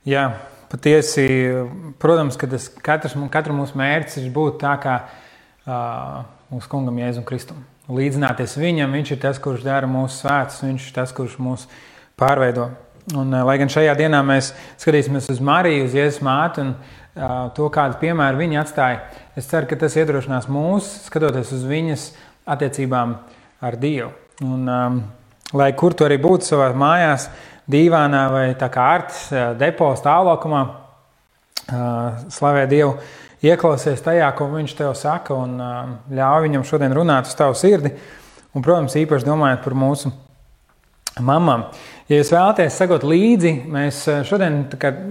Jā, patiesi, protams, ka katra mūsu mērķis ir būt tā kā mūsu kungam Jēzum Kristum. Līdzināties viņam, viņš ir tas, kurš dara mūsu svētus, viņš ir tas, kurš mūs pārveido. Un, lai gan šajā dienā mēs skatīsimies uz Mariju, uz Jēzus māti un to, kādu piemēru viņa atstāja, es ceru, ka tas iedrošinās mūs, skatoties uz viņas attiecībām ar Dievu. Un, lai kur tu arī būtu savā mājās, dīvānā vai tā kā Artis depo stāvlaukumā, slavē Dievu, ieklausies tajā, ko viņš tev saka un ļauj viņam šodien runāt uz tavu sirdi. Un, protams, īpaši domājot par mūsu mamām. Ja jūs vēlaties sekot līdzi, mēs šodien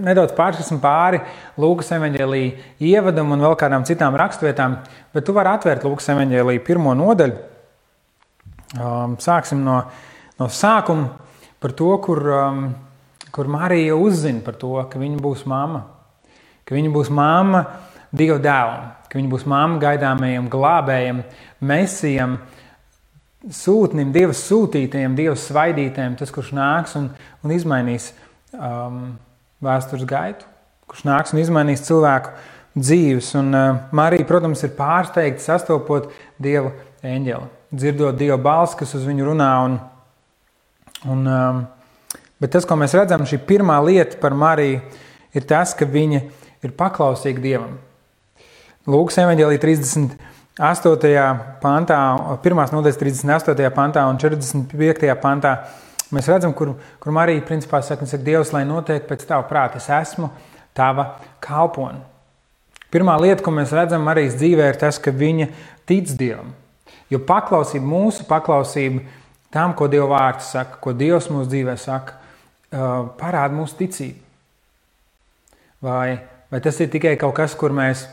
nedaudz pārskatīsim pāri Lūkas evaņģēlija ievadam un vēl kādām citām rakstvietām, bet tu vari atvērt Lūkas evaņģēlija 1. nodaļu. Sāksim no sākuma par to, kur Marija uzzina par to, ka viņa būs mamma. Ka viņa būs mamma Dieva dēlam, ka viņa būs mamma gaidāmajam glābējam, mesijam, sūtnim, Dieva sūtītajiem, Dieva svaidītajiem, tas, kurš nāks un izmainīs vēstures gaitu, kurš nāks un izmainīs cilvēku dzīves. Un Marija, protams, ir pārsteigta sastopot Dieva eņģeli, dzirdot Dieva balsi, kas uz viņu runā. Bet tas, ko mēs redzam, šī pirmā lieta par Mariju, ir tas, ka viņa ir paklausīga Dievam. Lūkas evaņģēlija 38. pantā, 1. nodaļas 38. pantā un 45. pantā mēs redzam, kur Marija principā saka, Dievs, lai notiek pēc tava prāta, es esmu tava kalpone. Pirmā lieta, ko mēs redzam Marijas dzīvē, ir tas, ka viņa tic Dievam. Jo mūsu paklausība tam, ko Dieva vārds saka, ko Dievs mūsu dzīvē saka, parāda mūsu ticību. Vai tas ir tikai kaut kas, kur mēs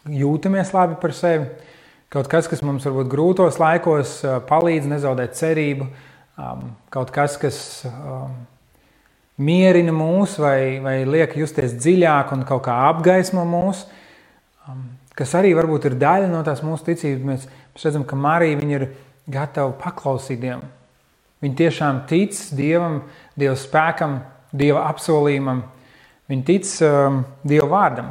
jūtamies labi par sevi, kaut kas, kas mums varbūt grūtos laikos palīdz nezaudēt cerību, kaut kas, kas mierina mūs vai liek justies dziļāk un kaut kā apgaismo mūs, kas arī varbūt ir daļa no tās mūsu ticības. Mēs redzam, ka Marija viņa ir gatava paklausīt Dievam. Viņa tiešām tic Dievam, Dieva spēkam, Dieva apsolījumam. Viņa tic Dieva vārdam,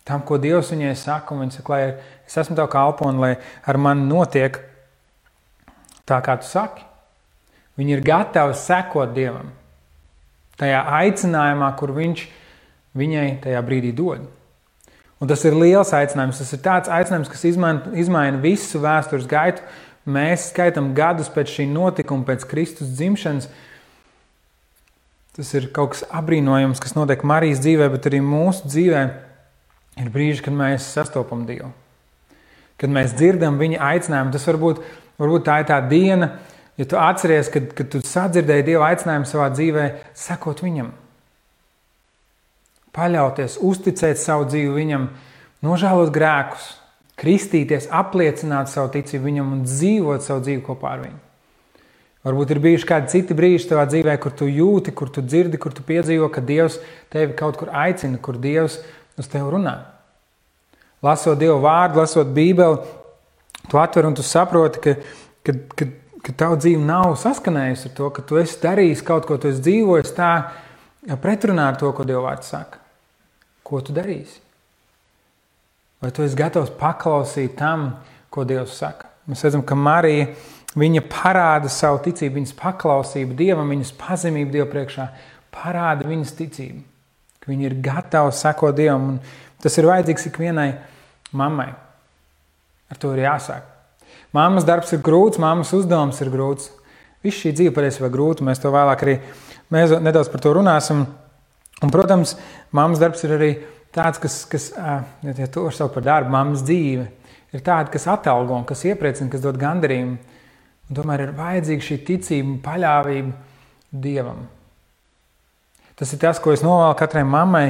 tam, ko Dievs viņai saka, un viņa saka, lai es esmu tev kalpone, lai ar mani notiek tā, kā tu saki. Viņa ir gatava sekot Dievam tajā aicinājumā, kur viņš viņai tajā brīdī dod. Un tas ir liels aicinājums, tas ir tāds aicinājums, kas izmaina visu vēstures gaitu. Mēs skaitam gadus pēc šī notikuma, pēc Kristus dzimšanas. Tas ir kaut kas abrīnojams, kas notiek Marijas dzīvē, bet arī mūsu dzīvē ir brīži, kad mēs sastopam Dievu. Kad mēs dzirdam viņa aicinājumu, tas varbūt tā ir tā diena, ja tu atceries, kad tu sadzirdēji Dieva aicinājumu savā dzīvē, sekot viņam. Paļauties, uzticēt savu dzīvi viņam, nožēlot grēkus, kristīties, apliecināt savu ticību viņam un dzīvot savu dzīvi kopā ar viņu. Varbūt ir bijuši kādi citi brīži tavā dzīvē, kur tu jūti, kur tu dzirdi, kur tu piedzīvo, ka Dievs tevi kaut kur aicina, kur Dievs uz tevi runā. Lasot Dieva vārdu, lasot Bībeli, tu atver un tu saproti, ka tava dzīve nav saskanējusi ar to, ka tu esi darījis kaut ko, tu esi dzīvojis tā pretrunā ar to, ko Dieva vārds saka. Ko tu darīsi? Vai tu esi gatavs paklausīt tam, ko Dievs saka? Mēs redzam, ka Marija, viņa parāda savu ticību, viņas paklausību Dievam, viņas pazemību Dievu priekšā, parāda viņas ticību. Ka viņa ir gatava sekot Dievam, un tas ir vajadzīgs ikvienai mammai. Ar to ir jāsāk. Mammas darbs ir grūts, mammas uzdevums ir grūts. Viss šī dzīve patiesībā grūta, mēs to vēlāk arī nedaudz par to runāsim. Un, protams, mammas darbs ir arī tāds, kas ja to var saukt par darbu, mammas dzīve, ir tāda, kas atalgo un kas iepriecina, kas dod gandarījumu. Un tomēr ir vajadzīga šī ticība un paļāvība Dievam. Tas ir tas, ko es novēlu katrai mammai,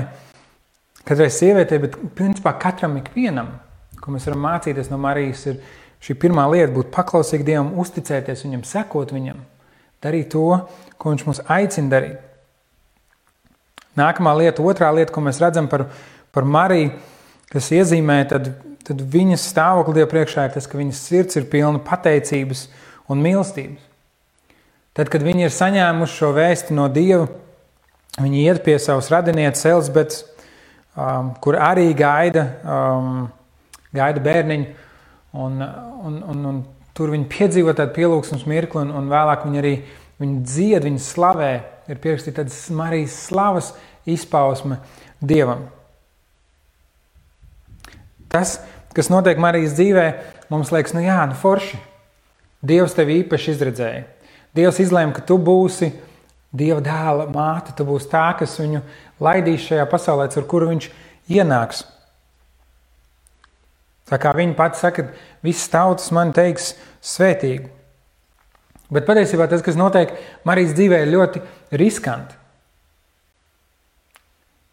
katrai sievietei, bet principā katram ikvienam, ko mēs varam mācīties no Marijas, ir šī pirmā lieta būt paklausīgi Dievam, uzticēties viņam, sekot viņam, darīt to, ko viņš mūs aicina darīt. Nākamā lieta, otrā lieta, ko mēs redzam par Mariju, kas iezīmē, tad viņas stāvokli Dieva priekšā ir tas, ka viņas sirds ir pilna pateicības un mīlestības. Tad, kad viņi ir saņēmuši šo vēsti no Dieva, Viņi iet pie savas radinieces Elizabetes, kur arī gaida bērniņu, un tur viņi piedzīvo tādu pielūgsmes mirkli, un vēlāk viņi arī dzied, viņi slavē, ir pierakstīta tādas Marijas slavas izpausme Dievam. Tas, kas notiek Marijas dzīvē, mums liekas, forši. Dievs tevi īpaši izredzēja. Dievs izlēma, ka tu būsi Dieva dēla māte, tu būsi tā, kas viņu laidīs šajā pasaulē, ar kuru viņš ienāks. Tā kā viņa pati saka, visas tautas man teiks svētīgu. Bet patiesībā tas, kas notiek Marijas dzīvē, ir ļoti riskanti.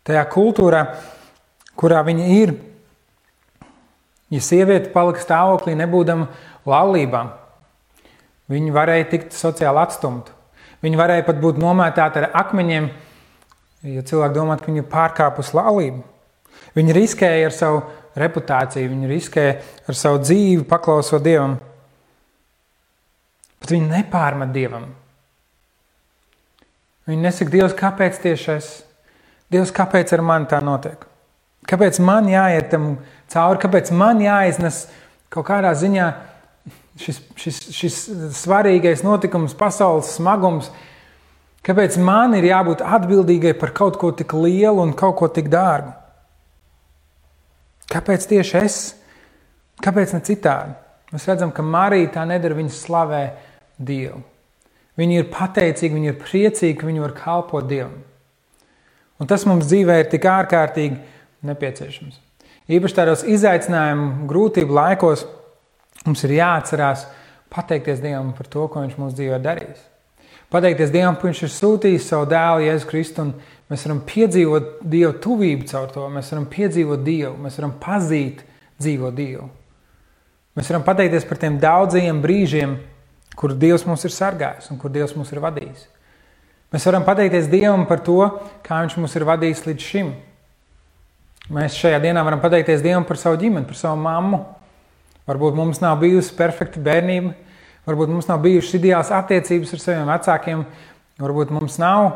Tajā kultūrā, kurā viņa ir, ja sieviete palika stāvoklī nebūdama laulībā, viņa varēja tikt sociāli atstumta. Viņa varēja pat būt nomētāta ar akmeņiem, ja cilvēki domā, ka viņa pārkāpus laulību. Viņa riskēja ar savu reputāciju, viņa riskēja ar savu dzīvi, paklausot Dievam. Bet viņa nepārmet Dievam. Viņa nesaka, Dievs, kāpēc tieši es? Dievs, kāpēc ar mani tā notiek? Kāpēc man jāiet tam cauri? Kāpēc man jāiznes kaut kādā ziņā šis svarīgais notikums, pasaules smagums? Kāpēc man ir jābūt atbildīgai par kaut ko tik lielu un kaut ko tik dārgu? Kāpēc tieši es? Kāpēc ne citādi? Mēs redzam, ka Marija tā nedara, viņa slavē Dievu. Viņa ir pateicīga, viņa ir priecīga, ka viņa var kalpot Dievam. Un tas mums dzīvē ir tik ārkārtīgi nepieciešams. Īpaši tādos izaicinājumu, grūtību laikos mums ir jāatcerās pateikties Dievam par to, ko viņš mūsu dzīvē darījis. Pateikties Dievam, ka viņš ir sūtījis savu dēlu Jēzu Kristu, un mēs varam piedzīvot Dievu tuvību caur to, mēs varam piedzīvot Dievu, mēs varam pazīt dzīvo Dievu. Mēs varam pateikties par tiem daudzajiem brīžiem, kur Dievs mūs ir sargājis un kur Dievs mūs ir vadījis. Mēs varam pateikties Dievam par to, kā viņš mūs ir vadījis līdz šim. Mēs šajā dienā varam pateikties Dievam par savu ģimeni, par savu mammu. Varbūt mums nav bijusi perfekta bērnība, varbūt mums nav bijušas ideāls attiecības ar saviem vecākiem, varbūt mums nav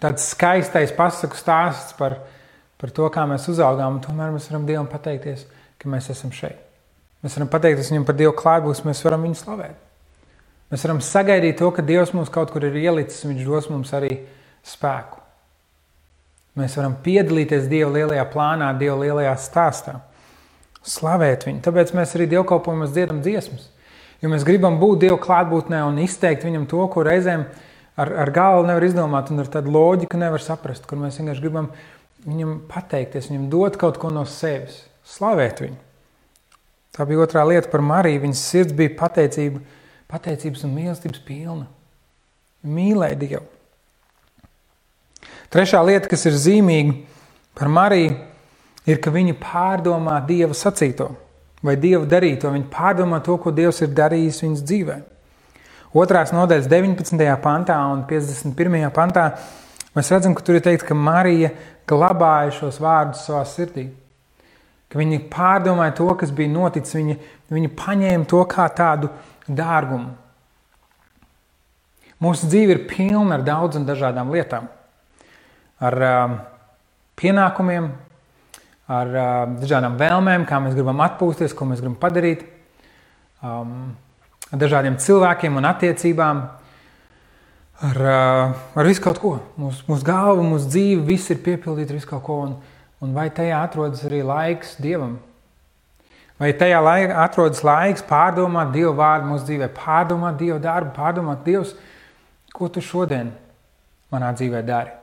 tāds skaistais pasaku stāsts par to, kā mēs uzaugām, un tomēr mēs varam Dievam pateikties, ka mēs esam šeit. Mēs varam pateikties viņam par Dievu klātbūtni, mēs varam viņu slavēt. Mēs varam sagaidīt to, ka Dievs mums kaut kur ir ielicis, un viņš dos mums arī spēku. Mēs varam piedalīties Dieva lielajā plānā, Dieva lielajā stāstā. Slavēt viņu. Tāpēc mēs arī dievkalpojumos dziedam dziesmas. Jo mēs gribam būt Dieva klātbūtnē un izteikt viņam to, ko reizēm ar galvu nevar izdomāt un ar tādu loģiku nevar saprast, kur mēs vienkārši gribam viņam pateikties, viņam dot kaut ko no sevis. Slavēt viņu. Tā bija otrā lieta par Mariju. Viņas sirds bija pateicības un mīlestības pilna. Mīlēja Dievu. Trešā lieta, kas ir zīmīga par Mariju, ir, ka viņa pārdomā Dieva sacīto vai Dieva darīto. Viņa pārdomā to, ko Dievs ir darījis viņas dzīvē. 2. nodaļas 19. pantā un 51. pantā mēs redzam, ka tur ir teikt, ka Marija glabāja šos vārdus savā sirdī. Ka viņa pārdomāja to, kas bija noticis. Viņa paņēma to kā tādu dārgumu. Mūsu dzīve ir pilna ar daudz un dažādām lietām. Ar pienākumiem, ar dažādām vēlmēm, kā mēs gribam atpūsties, ko mēs gribam padarīt, ar dažādiem cilvēkiem un attiecībām, ar visu kaut ko. Mūsu galva, mūsu dzīve, viss ir piepildīti visu kaut ko, un vai tajā atrodas arī laiks Dievam? Vai tajā atrodas laiks pārdomāt Dieva vārdu mūsu dzīvē, pārdomāt Dieva darbu, pārdomāt Dievs, ko tu šodien manā dzīvē dari?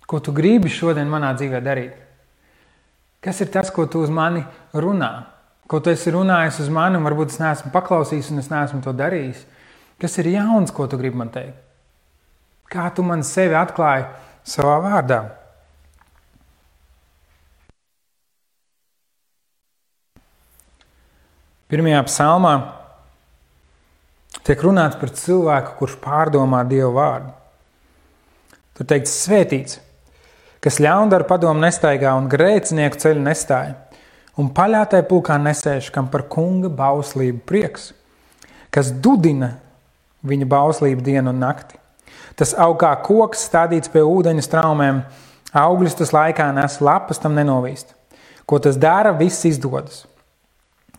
Ko tu gribi šodien manā dzīvē darīt? Kas ir tas, ko tu uz mani runā? Ko tu esi runājis uz mani, un varbūt es neesmu paklausījis un es neesmu to darījis? Kas ir jauns, ko tu gribi man teikt? Kā tu man sevi atklāji savā vārdā? Pirmajā psalmā tiek runāts par cilvēku, kurš pārdomā Dieva vārdu. Tur teikts svētīts, kas ļaundaru padomu nestaigā un grēcinieku ceļu nestāja, un paļātai pulkā nesēž, kam par kunga bauslību prieks, kas dudina viņa bauslību dienu un nakti, Tas aug kā koks stādīts pie ūdeņa straumēm, augļus tas laikā nes, lapas tam nenovīst. Ko tas dara, viss izdodas.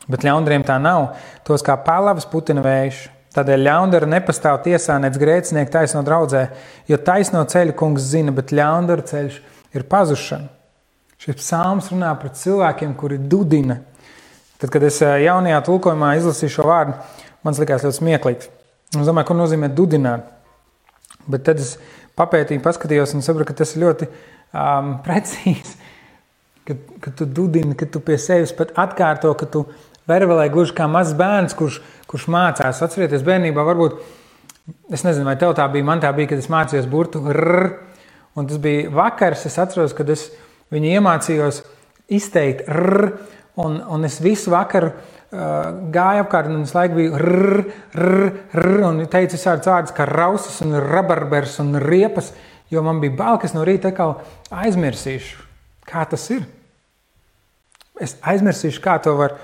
Bet ļaundariem tā nav, tos kā palavas putina vējš. Tādēļ ļaundara nepastāv tiesā, nec grēcinieku taisno draudzē, jo taisno ceļu kungs zina, bet ļaundara ceļš ir pazušana. Šis psalms runā par cilvēkiem, kuri dudina. Tad, kad es jaunajā tulkojumā izlasīju šo vārdu, man likās ļoti smieklīgs. Es domāju, ko nozīmē dudināt. Bet tad es papētīju, paskatījos un sapratu, ka tas ir ļoti precīzi. Kad tu dudini, kad tu pie sevis pat atkārto, ka tu vervelē gluži kā mazs bērns, kurš mācās. Atcerieties, bērnībā varbūt, es nezinu, vai tev tā bija, man tā bija, kad es mācījos burtu rr, un tas bija vakars, es atceros, kad es viņu iemācījos izteikt rr, un es visu vakaru gāju apkārt, un es laiku biju rr, rr, rr, un teicu visādas vārdas kā rausas un rabarbers un riepas, jo man bija bail, ka es no rīta atkal aizmirsīšu, kā tas ir. Es aizmirsīšu, kā to var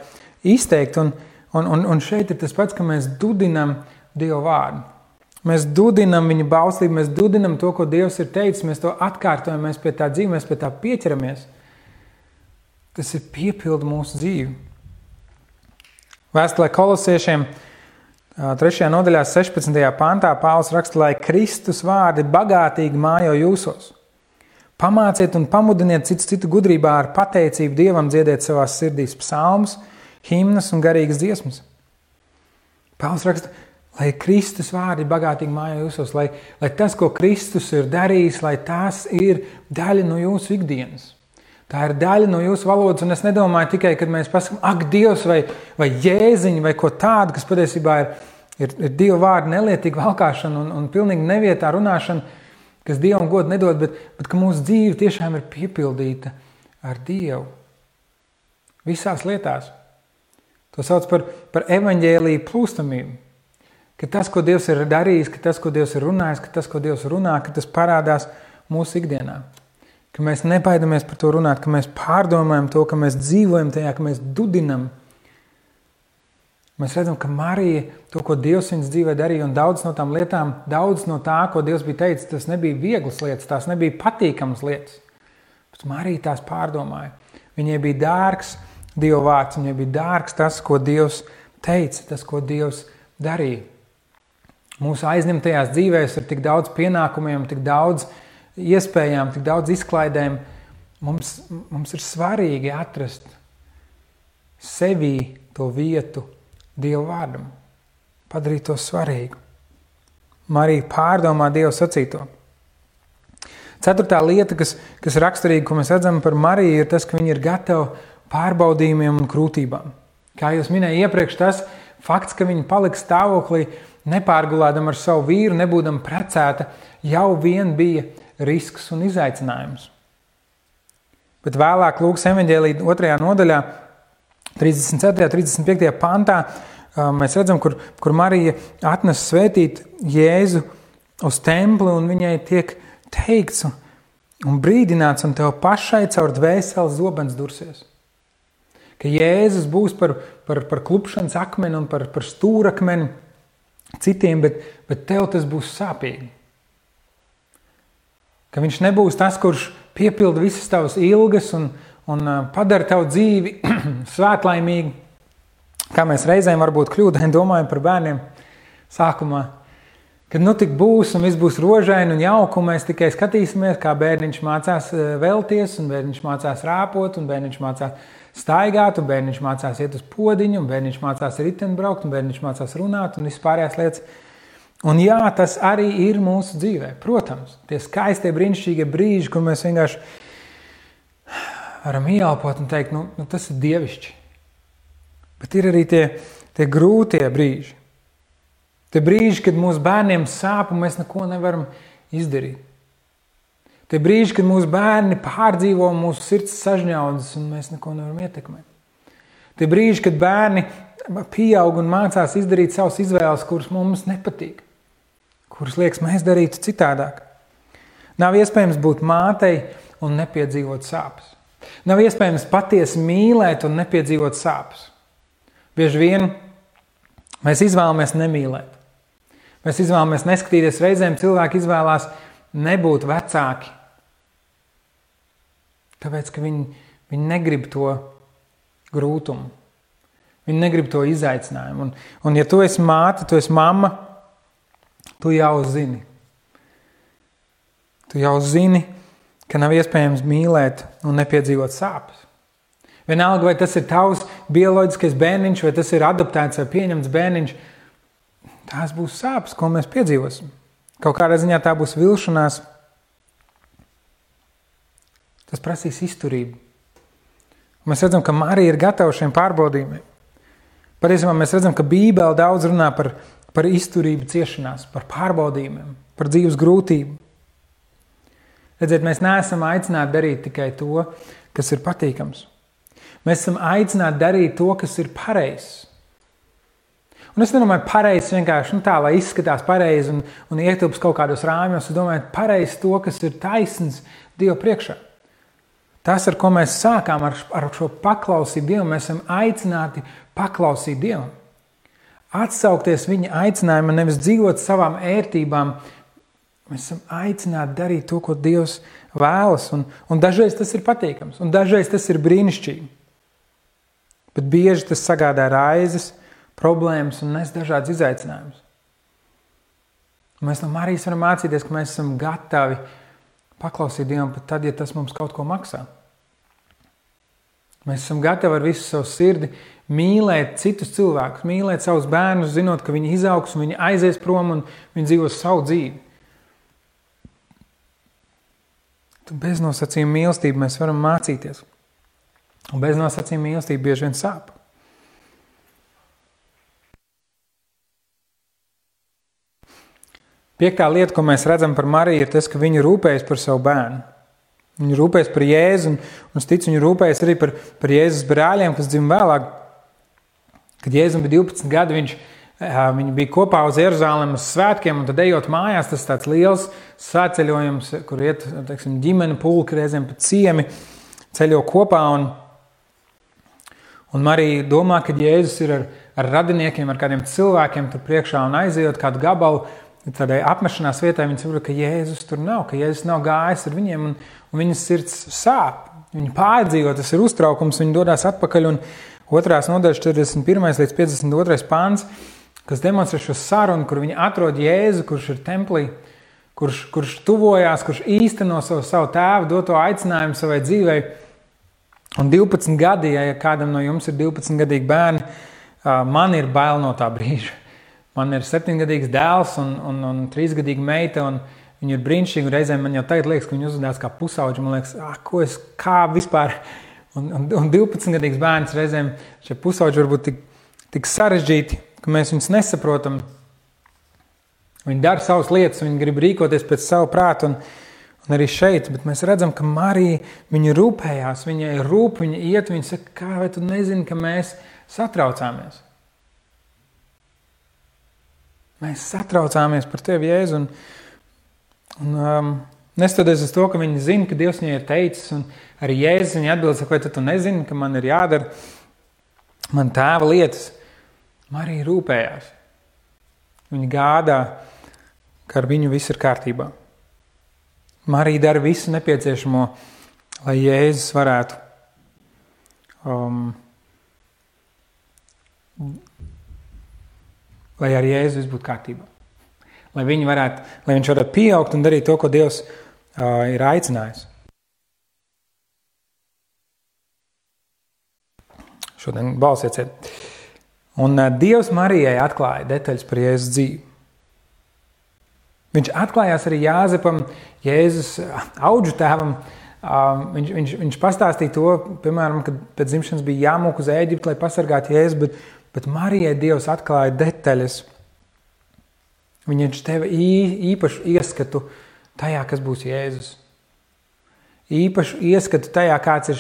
izteikt, un šeit ir tas pats, ka mēs dudinam Dievu vārdu. Mēs dudinam viņa bauslību, mēs dudinam to, ko Dievs ir teicis, mēs to atkārtojam, mēs pie tā dzīvē, mēs pie tā pieķeramies. Tas ir piepilda mūsu dzīvi. Vēstulē Kolosiešiem 3. nodaļā 16. pantā Pāvils raksta, lai Kristus vārdi bagātīgi mājo jūsos. Pamāciet un pamudiniet citu gudrībā ar pateicību Dievam dziediet savās sirdīs psalmus, himnas un garīgas dziesmas. Pāvils raksta, lai Kristus vārdi bagātīgi mājo jūsos, lai tas, ko Kristus ir darījis, lai tās ir daļa no jūsu ikdienas. Tā ir daļa no jūsu valodas, un es nedomāju tikai, kad mēs pasakām, ak, Dievs vai Jēziņi vai ko tādu, kas patiesībā ir Dieva vārdu nelietīga valkāšana un pilnīgi nevietā runāšana, kas Dievam godu nedod, bet ka mūsu dzīve tiešām ir piepildīta ar Dievu. Visās lietās. To sauc par evaņģēliju plūstamību. Ka tas, ko Dievs ir darījis, ka tas, ko Dievs ir runājis, ka tas, ko Dievs runā, ka tas parādās mūsu ikdienā. Ka mēs nebaidamies par to runāt, ka mēs pārdomājam to, ka mēs dzīvojam tajā, ka mēs dudinam. Mēs redzam, ka Marija to, ko Dievs viņas dzīvē darīja, un daudz no tām lietām, daudz no tā, ko Dievs bija teicis, tas nebija vieglas lietas, tās nebija patīkamas lietas. Bet Marija tās pārdomāja. Viņai bija dārgs Dieva vārds, viņai bija dārgs tas, ko Dievs teica, tas, ko Dievs darīja. Mūsu aizņemtajās dzīvēs ir tik daudz pienākumiem, tik daudz iespējām, tik daudz izklaidēm. Mums ir svarīgi atrast sevī to vietu Dieva vārdam. Padarīt to svarīgu. Marija pārdomā Dievu sacīto. 4. lieta, kas raksturīga, ko mēs redzam par Mariju, ir tas, ka viņa ir gatava pārbaudījumiem un krūtībām. Kā jūs minēju iepriekš, tas fakts, ka viņa palika stāvoklī nepārgulādam ar savu vīru, nebūdam precēta, jau vien bija risks un izaicinājums. Bet vēlāk Lūkas evaņģēlija 2. nodaļā, 34. 35. pantā, mēs redzam, kur Marija atnes svētīt Jēzu uz templi, un viņai tiek teikts un brīdināts, un tev pašai caur dvēseles zobens dursies. Ka Jēzus būs par klupšanas akmeni un par stūrakmeni citiem, bet tev tas būs sāpīgi. Ka viņš nebūs tas, kurš piepilda visas tavas ilgas un padara tavu dzīvi svētlaimīgi. Kā mēs reizēm varbūt kļūdaini domājam par bērniem sākumā. Kad tik būs un viss būs rožaini un jauki, un mēs tikai skatīsimies, kā bērniņš mācās velties, un bērniņš mācās rāpot, un bērniņš mācās staigāt, un bērniņš mācās iet uz podiņu, un bērniņš mācās riteni braukt, un bērniņš mācās runāt, un vispārējās lietas. Un jā, tas arī ir mūsu dzīvē. Protams, tie skaistie, brīnišķīgie brīži, kur mēs vienkārši varam ieelpot un teikt, tas ir dievišķi. Bet ir arī tie grūtie brīži. Tie brīži, kad mūsu bērniem sāp un mēs neko nevaram izdarīt. Tie brīži, kad mūsu bērni pārdzīvo mūsu sirds sažņaudzes un mēs neko nevaram ietekmēt. Tie brīži, kad bērni pieaug un mācās izdarīt savas izvēles, kuras mums nepatīk. Kuras liekas mēs darītu citādāk. Nav iespējams būt mātei un nepiedzīvot sāpes. Nav iespējams patiesi mīlēt un nepiedzīvot sāpes. Bieži vien mēs izvēlamies nemīlēt. Mēs izvēlamies neskatīties, reizēm cilvēki izvēlās nebūt vecāki. Tāpēc, ka viņi negrib to grūtumu. Viņi negrib to izaicinājumu. Un ja tu esi māte, tu esi mamma, tu jau zini. Tu jau zini, ka nav iespējams mīlēt un nepiedzīvot sāpes. Vienalga, vai tas ir tavs bioloģiskais bērniņš, vai tas ir adoptēts vai pieņemts bērniņš, tās būs sāpes, ko mēs piedzīvosim. Kaut kādā ziņā tā būs vilšanās. Tas prasīs izturību. Mēs redzam, ka Marija ir gatava šiem pārbaudījumiem. Patiesībā mēs redzam, ka Bībele daudz runā par izturību ciešanās, par pārbaudījumiem, par dzīves grūtību. Redziet, mēs neesam aicināti darīt tikai to, kas ir patīkams. Mēs esam aicināti darīt to, kas ir pareizs. Un es nedomāju pareizs vienkārši tā, lai izskatās pareizi un ietilps kaut kādos rāmjos. Es domāju pareizi to, kas ir taisns Dieva priekšā. Tas, ar ko mēs sākām ar šo paklausību Dievam, mēs esam aicināti paklausīt Dievam. Atsaukties viņa aicinājumam, nevis dzīvot savām ērtībām. Mēs esam aicināti darīt to, ko Dievs vēlas. Un dažreiz tas ir patīkams, un dažreiz tas ir brīnišķīgi. Bet bieži tas sagādā raizes, problēmas un nes dažādas izaicinājumus. Mēs no Marijas varam mācīties, ka mēs esam gatavi paklausīt Dievam pat tad, ja tas mums kaut ko maksā. Mēs esam gatavi ar visu savu sirdi mīlēt citus cilvēkus, mīlēt savus bērnus, zinot, ka viņi izaugs un viņi aizies prom un viņi dzīvos savu dzīvi. Bez nosacījuma mīlestību mēs varam mācīties. Un bez nosacījuma mīlestība bieži vien sāp. Piektā lieta, ko mēs redzam par Mariju, ir tas, ka viņa rūpējas par savu bērnu. Viņa rūpējas par Jēzu, un es ticu, viņa rūpējas arī par Jēzus brāļiem, kas dzima vēlāk. Kad Jēzum bija 12 gadi, viņi bija kopā uz Jeruzalem uz svētkiem, un tad ejot mājās, tas tāds liels svētceļojums, kur iet, teiksim, ģimene pulki, reizēm pat ciemi, ceļo kopā, un Marija domā, ka Jēzus ir ar radiniekiem, ar kādiem cilvēkiem tur priekšā, un aizejot kādu gabalu, tādai apmešanās vietai, viņi saprot, ka Jēzus tur nav, ka Jēzus nav gājis ar viņiem, un viņas sirds sāp. Viņi pārdzīvo, tas ir uztraukums, viņi dodās atpakaļ, un 2. nodaļas 41. līdz 52. pāns, kas demonstrē šo sarunu, kur viņi atrod Jēzu, kurš ir templī, kurš tuvojās, kurš īsteno savu tēvu, doto aicinājumu savai dzīvei. Un 12 gadi, ja kādam no jums ir 12-gadīgi bērni, man ir bail no tā brīža. Man ir 7-gadīgs dēls un 3-gadīga meita, un viņi ir brīnišķīgi, un reizēm man jau tagad liekas, ka viņi uzvedās kā pusauģi, man liekas, kā vispār, un 12-gadīgs bērns reizēm šie pusauģi varbūt tik sarežģīti, ka mēs viņus nesaprotam. Viņi dara savas lietas, viņi grib rīkoties pēc savu prātu, un arī šeit, bet mēs redzam, ka Marija, viņa rūpējās, viņai rūp, viņa iet, viņa saka, kā vai tu nezini, ka mēs satraucāmies? Mēs satraucāmies par tevi, Jēzu, un neskatoties uz to, ka viņi zina, ka Dievs viņai ir teicis, un arī Jēzus viņa atbild, saka, vai tu nezini, ka man ir jādara man tēva lietas. Marija rūpējās. Viņa gādā, ka ar viņu viss ir kārtībā. Marija dara visu nepieciešamo, lai Jēzus varētu lai ar Jēzu viss būtu kārtībā. Lai viņš varētu pieaugt un darīt to, ko Dievs ir aicinājis. Šodien balsieciet. Un Dievs Marijai atklāja detaļas par Jēzus dzīvi. Viņš atklājās arī Jāzepam, Jēzus audžu tēvam. Viņš pastāstīja to, piemēram, kad pēc dzimšanas bija jāmūk uz Ēģipti, lai pasargātu Jēzu, bet Marijai Dievs atklāja detaļas. Viņš teva īpašu ieskatu tajā, kas būs Jēzus. Īpašu ieskatu tajā, kāds ir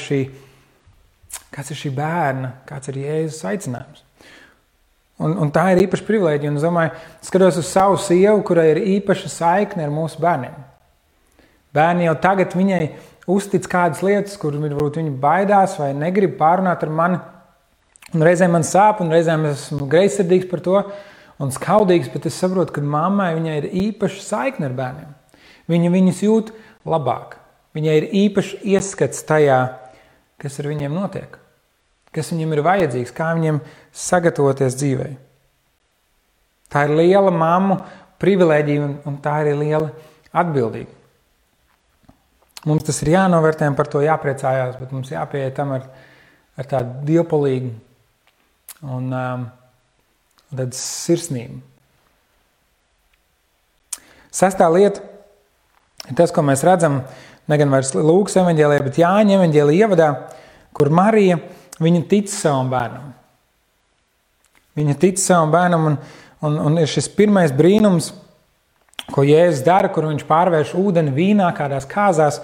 šī bērna, kāds ir Jēzus aicinājums. Un tā ir īpaša privilēģija. Un es domāju, skatos uz savu sievu, kurai ir īpaša saikne ar mūsu bērniem. Bērni jau tagad viņai uztic kādas lietas, kur varbūt viņi baidās vai negrib pārunāt ar mani. Un reizēm man sāp, un reizēm esmu greizsirdīgs par to. un skaudīgs, bet es saprotu, ka mammai viņai ir īpaša saikne ar bērniem. Viņa viņus jūt labāk. Viņai ir īpaši ieskats tajā, kas ar viņiem notiek, kas viņiem ir vajadzīgs, kā viņiem sagatavoties dzīvei. Tā ir liela mammu privilēģija un tā ir liela atbildība. Mums tas ir jānovērtē un par to jāpriecājās, bet mums jāpieiet tam ar tādu dievpalīgu un tādu sirsnību. 6. lieta ir tas, ko mēs redzam, ne gan vairs Lūkas evaņģēlijā, bet Jāņa evaņģēlijā ievadā, kur Marija, viņa tic savam bērnam. Viņa tic savam bērnam un ir šis pirmais brīnums, ko Jēzus dara, kur viņš pārvērš ūdeni vīnā kādās kāzās,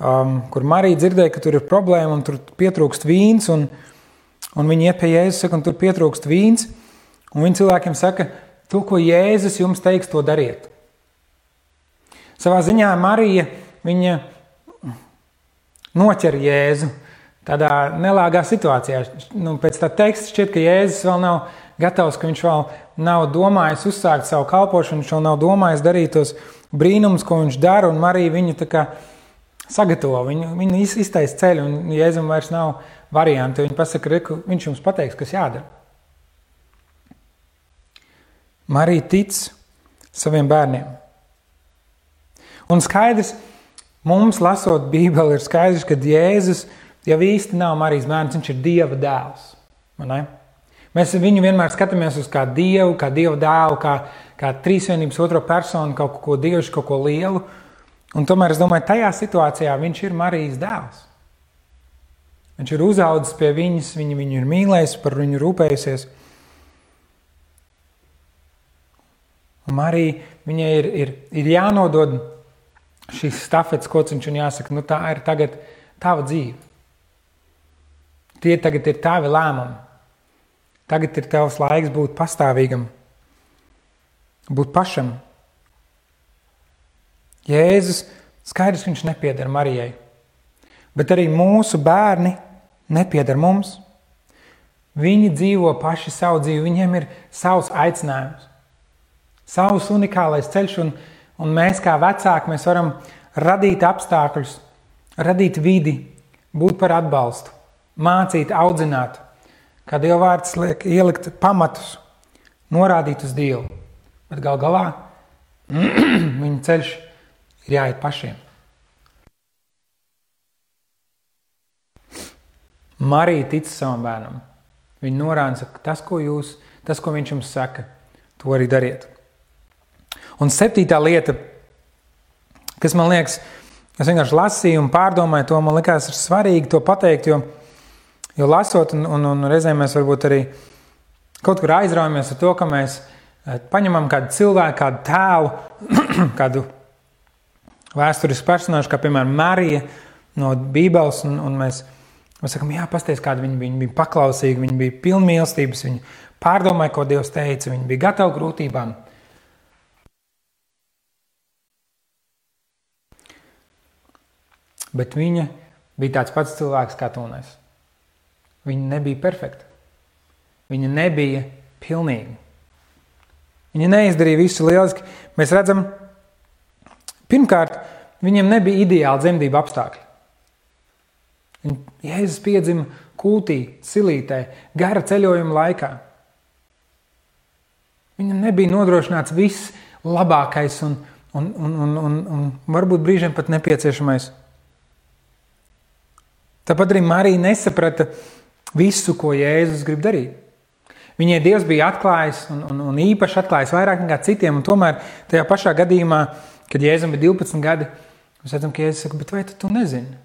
kur Marija dzirdēja, ka tur ir problēma un tur pietrūkst vīns, un viņi iet pie Jēzus, saka, un tur pietrūkst vīns, un viņi cilvēkiem saka, to, ko Jēzus jums teiks, to dariet. Savā ziņā Marija, viņa noķer Jēzu tādā nelāgā situācijā. Pēc tā teksta šķiet, ka Jēzus vēl nav gatavs, ka viņš vēl nav domājis uzsākt savu kalpošanu, viņš vēl nav domājis darīt tos brīnumus, ko viņš dara, un Marija viņu tā kā sagatavo, viņu iztaisa ceļu, un Jēzum vairs nav varianti. Viņa pasaka, viņš jums pateiks, kas jādara. Marija tic saviem bērniem. Un skaidrs, mums lasot Bībeli, ir skaidrs, ka Jēzus jau īsti nav Marijas bērns, viņš ir Dieva dēls. Ne? Mēs viņu vienmēr skatāmies uz kā Dievu, kā Dieva dēlu, kā trīsvienības otro personu, kaut ko dievišķu, kaut ko lielu. Un tomēr es domāju, tajā situācijā viņš ir Marijas dēls. Viņš ir uzaudzis pie viņas, viņu ir mīlējis, par viņu rūpējusies. Un Marija, viņai ir jānodod šīs stafetes kociņš un jāsaka, tā ir tagad tava dzīve. Tie tagad ir tavi lēmumi. Tagad ir tavs laiks būt pastāvīgam, būt pašam. Jēzus, skaidrs, viņš nepieder Marijai, bet arī mūsu bērni nepieder mums. Viņi dzīvo paši savu dzīvi, viņiem ir savs aicinājums, savs unikālais ceļš, un mēs kā vecāki, mēs varam radīt apstākļus, radīt vidi, būt par atbalstu, mācīt, audzināt, kā Dieva vārds liek ielikt pamatus, norādīt uz Dievu, bet gal galā viņa ceļš ir jāiet pašiem. Marija tic savam bērnam. Viņa norāda, ka tas, ko viņš jums saka, to arī dariet. Un 7. lieta, kas man liekas, es vienkārši lasīju un pārdomāju to, man likās ir svarīgi to pateikt, jo lasot un reizēm mēs varbūt arī kaut kur aizraujamies ar to, ka mēs paņemam kādu cilvēku, kādu tēlu, kādu vēsturisku personāžu, kā piemēram Marija no Bībeles, un mēs sakam, jā, pasties, kāda viņa bija paklausīga, viņa bija pilna mīlestības, viņa pārdomāja, ko Dievs teica, viņa bija gatava grūtībām. Bet viņa bija tāds pats cilvēks kā tu un es. Viņa nebija perfekta. Viņa nebija pilnīga. Viņa neizdarīja visu lieliski. Mēs redzam, pirmkārt, viņam nebija ideāli dzemdību apstākļi. Jēzus piedzima kultī, silītē, gara ceļojuma laikā. Viņam nebija nodrošināts viss labākais un varbūt brīžiem pat nepieciešamais. Tāpat arī Marija nesaprata visu, ko Jēzus grib darīt. Viņai Dievs bija atklājis un īpaši atklājis vairāk nekā citiem, un tomēr tajā pašā gadījumā, kad Jēzum bija 12 gadi, mēs redzam, ka Jēzus saka, bet vai tu nezini?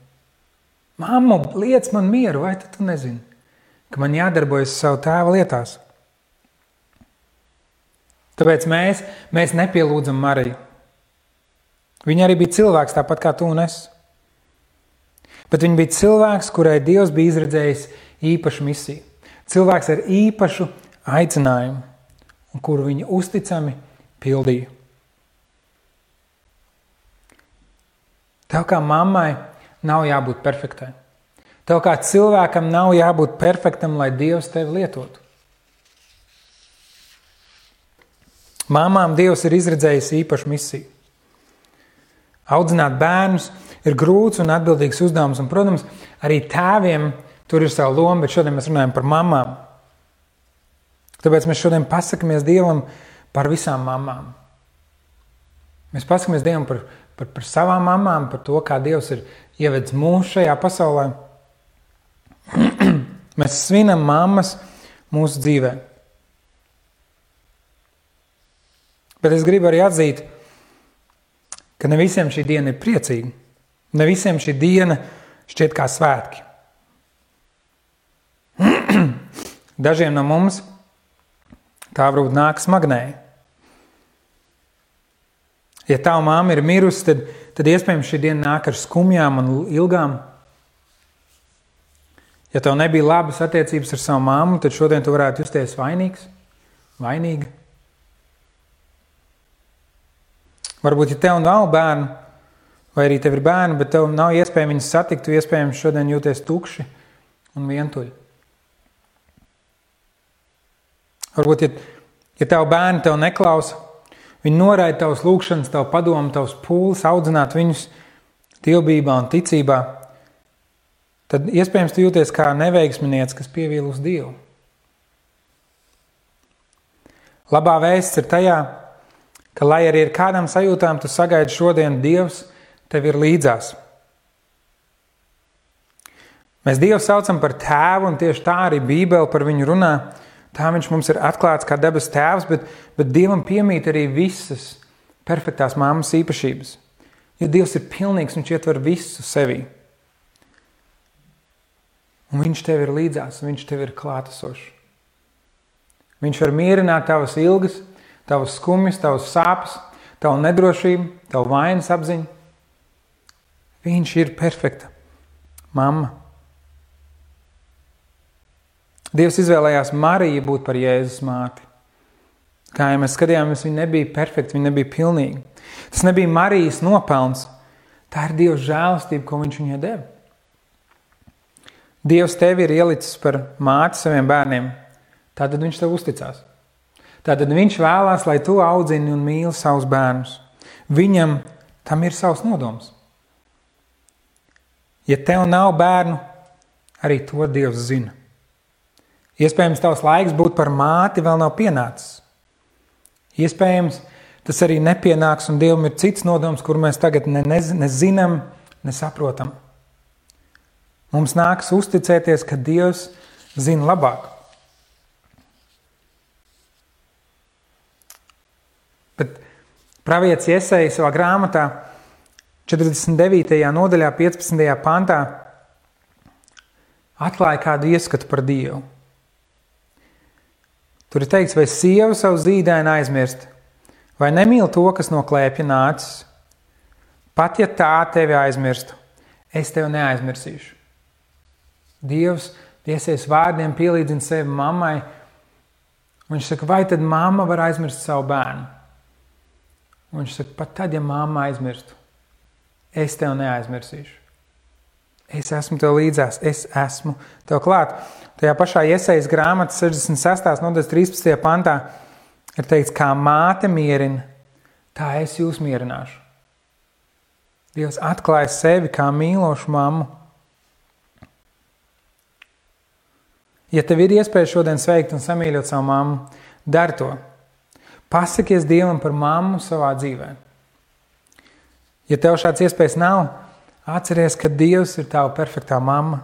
Mammu, liec man mieru, vai tu nezini, ka man jādarbojas savu tēva lietās? Tāpēc mēs nepielūdzam Mariju. Viņa arī bija cilvēks, tāpat kā tu un es. Bet viņa bija cilvēks, kurai Dievs bija izredzējis īpašu misiju. Cilvēks ar īpašu aicinājumu, un kuru viņa uzticami pildīja. Tev kā mammai nav jābūt perfektai. Tev kā cilvēkam nav jābūt perfektam, lai Dievs tevi lietotu. Māmām Dievs ir izredzējis īpašu misiju. Audzināt bērnus ir grūts un atbildīgs uzdevums, un, protams, arī tēviem tur ir savu lomu, bet šodien mēs runājam par mamām. Tāpēc mēs šodien pasakamies Dievam par visām mamām. Mēs pasakamies Dievam par savām mamām, par to, kā Dievs ir ievedis mūs šajā pasaulē. Mēs svinam mammas mūsu dzīvē. Bet es gribu arī atzīt, ka ne visiem šī diena ir priecīga. Ne visiem šī diena šķiet kā svētki. Dažiem no mums tā varbūt nāk smagnēji. Ja tava mamma ir mirusi, tad iespējams šī diena nāk ar skumjām un ilgām. Ja tev nebija labas attiecības ar savu mammu, tad šodien tu varētu justies vainīgs, vainīga. Varbūt, ja tev nav bērnu, vai arī tev ir bērni, bet tev nav iespēja viņus satikt, tu iespējams šodien jūties tukši un vientuļi. Varbūt, ja tev bērni tev neklausa, viņi noraida tavas lūgšanas, tavu padomu, tavas pūles, audzināt viņus dievbībā un ticībā, tad iespējams tu jūties kā neveiksminieks, kas pievīl uz Dievu. Labā vēsts ir tajā, ka, lai arī ar kādām sajūtām tu sagaidi šodien, Dievs tev ir līdzās. Mēs Dievu saucam par tēvu, un tieši tā arī Bībele par viņu runā. Tā viņš mums ir atklāts kā debes tēvs, bet Dievam piemīt arī visas perfektās mammas īpašības. Jo Dievs ir pilnīgs, viņš ietver visu sevī. Un viņš tev ir līdzās, viņš tev ir klātesošs. Viņš var mierināt tavas ilgas, tavas skumjas, tavas sāpes, tavu nedrošību, tavu vainas apziņu. Viņš ir perfekta mamma. Dievs izvēlējās Mariju būt par Jēzus māti. Kā ja mēs skatījāmies, viņa nebija perfekta, viņa nebija pilnīga. Tas nebija Marijas nopelns. Tā ir Dieva žēlastība, ko viņš viņai deva. Dievs tevi ir ielicis par māti saviem bērniem. Tātad viņš tev uzticās. Tātad viņš vēlās, lai tu audzini un mīli savus bērnus. Viņam tam ir savs nodoms. Ja tev nav bērnu, arī to Dievs zina. Iespējams, tavs laiks būt par māti vēl nav pienācis. Iespējams, tas arī nepienāks, un Dievam ir cits nodoms, kur mēs tagad nezinām, nesaprotam. Mums nākas uzticēties, ka Dievs zina labāk. Bet pravietis Jesaja savā grāmatā 49. nodaļā 15. pantā atklāja kādu ieskatu par Dievu. Tur ir teikts, vai sieva savu zīdaini aizmirst, vai nemīl to, kas no klēpja nācis. Pat ja tā tevi aizmirstu, es tevi neaizmirsīšu. Dievs tiesies vārdiem pielīdzina sevi mammai. Viņš saka, vai tad mamma var aizmirst savu bērnu? Viņš saka, pat tad, ja mamma aizmirstu, es tevi neaizmirsīšu. Es esmu tev līdzās, es esmu tev klāt. Tajā pašā Jesajas grāmatas 66. nodaļas 13. pantā ir teikts, kā māte mierina, tā es jūs mierināšu. Dievs atklāja sevi kā mīlošu mammu. Ja tev ir iespēja šodien sveikt un samīļot savu mammu, dari to. Pasakies Dievam par mammu savā dzīvē. Ja tev šāds iespējas nav, atceries, ka Dievs ir tava perfektā mamma.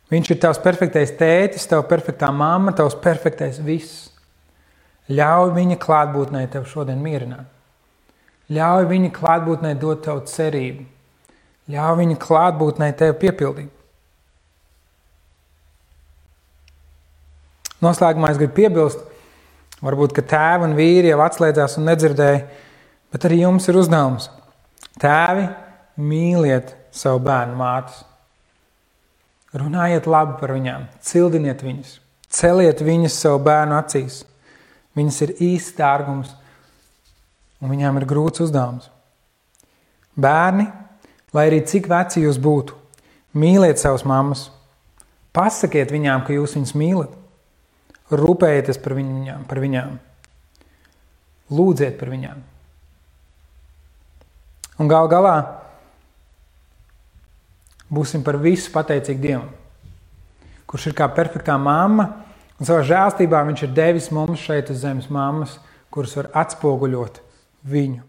Viņš ir tavs perfektais tētis, tava perfektā mamma, tavs perfektais viss. Ļauj viņa klātbūtnē tev šodien mierināt. Ļauj viņa klātbūtnē dot tev cerību. Ļauj viņa klātbūtnē tev piepildīt. Noslēgumā es gribu piebilst, varbūt, ka tēvi un vīri jau atslēdzās un nedzirdēja, bet arī jums ir uzdevums. Tēvi, mīliet savu bērnu mātes. Runājiet labi par viņām, cildiniet viņas, celiet viņas savu bērnu acīs. Viņas ir īsts dārgums un viņām ir grūts uzdevums. Bērni, lai arī cik veci jūs būtu, mīliet savas mammas. Pasakiet viņām, ka jūs viņas mīlat. Rūpējieties par viņām. lūdziet par viņām. Un gal galā būsim par visu pateicīgi Dievam, kurš ir kā perfektā mamma, un savā žēlstībā viņš ir devis mums šeit uz zemes mammas, kuras var atspoguļot viņu.